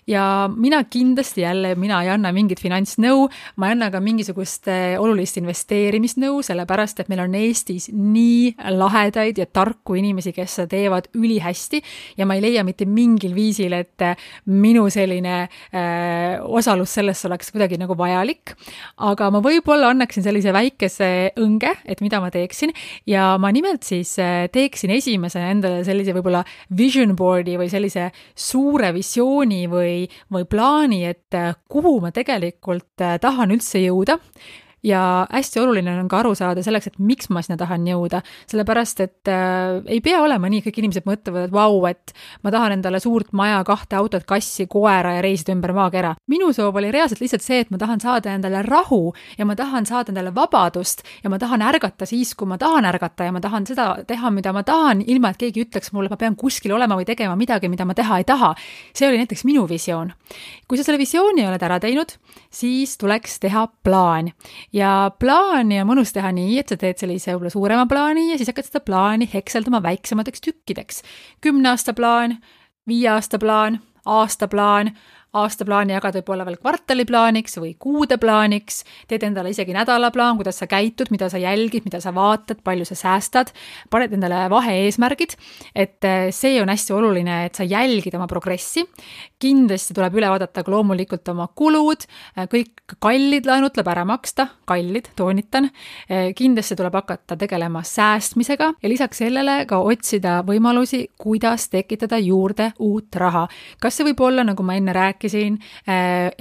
ja mina kindlasti mina ei anna mingit finantsnõu, ma ei anna ka mingisugust olulist investeerimisnõu, sellepärast, et meil on Eestis nii lahedaid ja tarku inimesi, kes seda teevad ülihästi ja ma ei leia mitte mingil viisil, et minu selline osalus selles oleks kuidagi nagu vajalik, aga ma võib-olla annaksin sellise väikese õnge, et mida ma teeksin ja ma nimelt siis teeksin esimese endale sellise võib-olla vision board'i või sellise suure visiooni või plaani, et kuhu ma tegelikult tahan üldse jõuda. Ja hästi oluline on ka aru saada selleks, et miks ma sinna tahan jõuda, sellepärast, et ei pea olema nii, kõik inimesed mõtlevad, et vau, et ma tahan endale suurt maja, 2 autot, kassi, koera ja reisida ümber maakera. Minu soov oli reaalselt lihtsalt see, et ma tahan saada endale rahu ja ma tahan saada endale vabadust ja ma tahan ärgata siis, kui ma tahan ärgata ja ma tahan seda teha, mida ma tahan, ilma et keegi ütleks mulle, ma pean kuskil olema või tegema midagi, mida ma teha ei taha. See oli näiteks minu visioon. Kui sa selle visiooni oled ära teinud, siis tuleks teha plaan. Ja plaani on mõnus teha nii, et sa teed sellise võib-olla suurema plaani ja siis hakkad seda plaani hekseldama väiksemateks tükkideks. 10 aasta plaan, 5 aasta plaan, aastaplaani jagad võib-olla veel kvartaliplaaniks või kuudeplaaniks, teed endale isegi nädalaplaan, kuidas sa käitud, mida sa jälgid, mida sa vaatad, palju sa säästad, paned endale vahe-eesmärgid, et see on hästi oluline, et sa jälgid oma progressi. Kindlasti tuleb üle vaadata loomulikult oma kulud, kõik kallid laenud tuleb ära maksta, kallid, toonitan. Kindlasti tuleb hakata tegelema säästmisega ja lisaks sellele ka otsida võimalusi, kuidas tekitada juurde uut raha. Kas see võib olla, nagu ma enne rääkisin,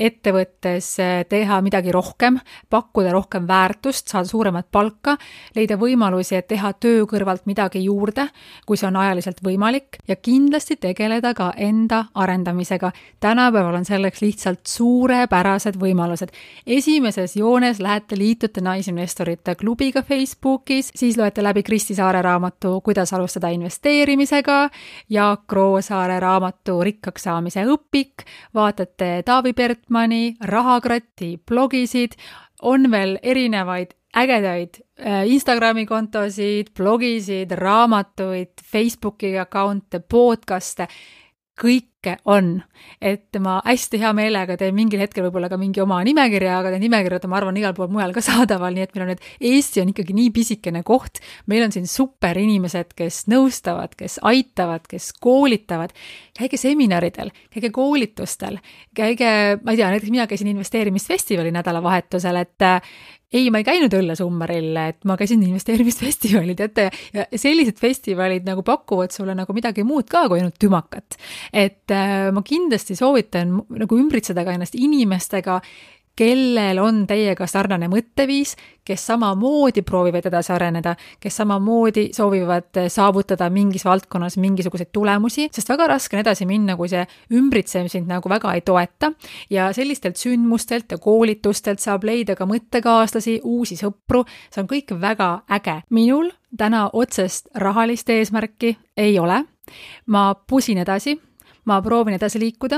ettevõttes teha midagi rohkem, pakkuda rohkem väärtust, saada suuremat palka, leida võimalusi, et teha töö kõrvalt midagi juurde, kui see on ajaliselt võimalik ja kindlasti tegeleda ka enda arendamisega. Tänapäeval on selleks lihtsalt suurepärased võimalused. Esimeses joones lähete liitute naisinvestorite klubiga Facebookis, siis loete läbi Kristi Saare raamatu Kuidas alustada investeerimisega, Jaak Roosaare raamatu Rikkaks saamise õpik, vaatate Taavi Pertmani, Rahakratti blogisid, on veel erinevaid ägedaid Instagrami kontosid, blogisid, raamatuid, Facebooki account'e, podcast'e, kõike on, et ma hästi hea meelega teen mingil hetkel võib-olla ka mingi oma nimekirja, aga need nimekirjad ma arvan igal pool mujal ka saadaval, nii et meil on Eesti on ikkagi nii pisikene koht, meil on siin super inimesed, kes nõustavad, kes aitavad, kes koolitavad, käige seminaridel, käige koolitustel, käige, ma ei tea, näiteks mina käisin investeerimisfestivali nädalavahetusel, et ei, ma ei käinud õllesummaril, et ma käisin investeerimisfestivalid, ja sellised festivalid nagu pakuvad sulle nagu midagi muud ka kui ainult tümakat. Et ma kindlasti soovitan nagu ümbritseda ka ennast inimestega, kellel on teiega sarnane mõtteviis, kes samamoodi proovivad edasi areneda, kes samamoodi soovivad saavutada mingis valdkonnas mingisuguseid tulemusi, sest väga raske on edasi minna, kui see ümbritsev sind nagu väga ei toeta ja sellistelt sündmustelt ja koolitustelt saab leida ka mõttekaaslasi, uusi sõpru, see on kõik väga äge. Minul täna otsest rahalist eesmärki ei ole, ma pusin edasi, ma proovin edasi liikuda,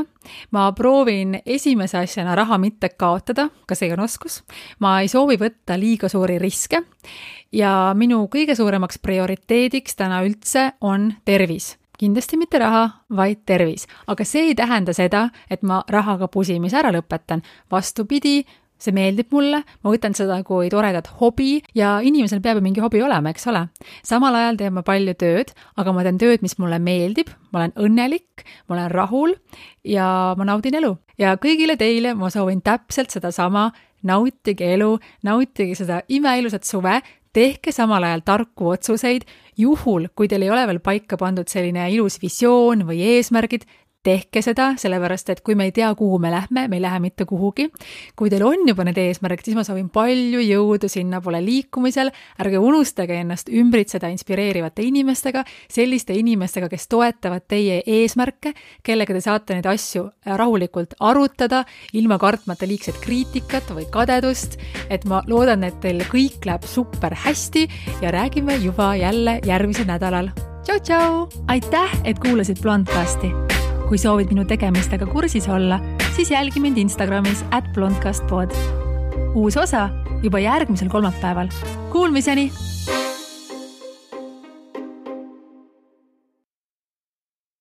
ma proovin esimese asjana raha mitte kaotada, ka see on oskus, ma ei soovi võtta liiga suuri riske ja minu kõige suuremaks prioriteediks täna üldse on tervis. Kindlasti mitte raha, vaid tervis, aga see ei tähenda seda, et ma rahaga pusimise ära lõpetan, vastupidi, see meeldib mulle, ma võtan seda kui toredat hobi ja inimesel peab mingi hobi olema, eks ole. Samal ajal teen ma palju tööd, aga ma teen tööd, mis mulle meeldib, ma olen õnnelik, ma olen rahul ja ma naudin elu. Ja kõigile teile ma soovin täpselt seda sama, nautige elu, nautige seda imeilusat suve, tehke samal ajal tarku otsuseid, juhul, kui teil ei ole veel paika pandud selline ilus visioon või eesmärgid, tehke seda, sellepärast et kui me ei tea, kuhu me ei lähe mitte kuhugi. Kui teil on juba need eesmärgid, siis ma soovin palju jõudu sinna poole liikumisel. Ärge unustage ennast ümbritseda inspireerivate inimestega, selliste inimestega, kes toetavad teie eesmärke, kellega te saate neid asju rahulikult arutada, ilma kartmata liigset kriitikat või kadedust. Et ma loodan, et teil kõik läheb super hästi ja räägime juba jälle järgmisel nädalal. Tšau, tšau! Aitäh, et kuulasid Blondcasti. Kui soovid minu tegemistega kursis olla, siis jälgi mind Instagramis @blondcastpod. Uus osa juba järgmisel kolmapäeval. Kuulmiseni!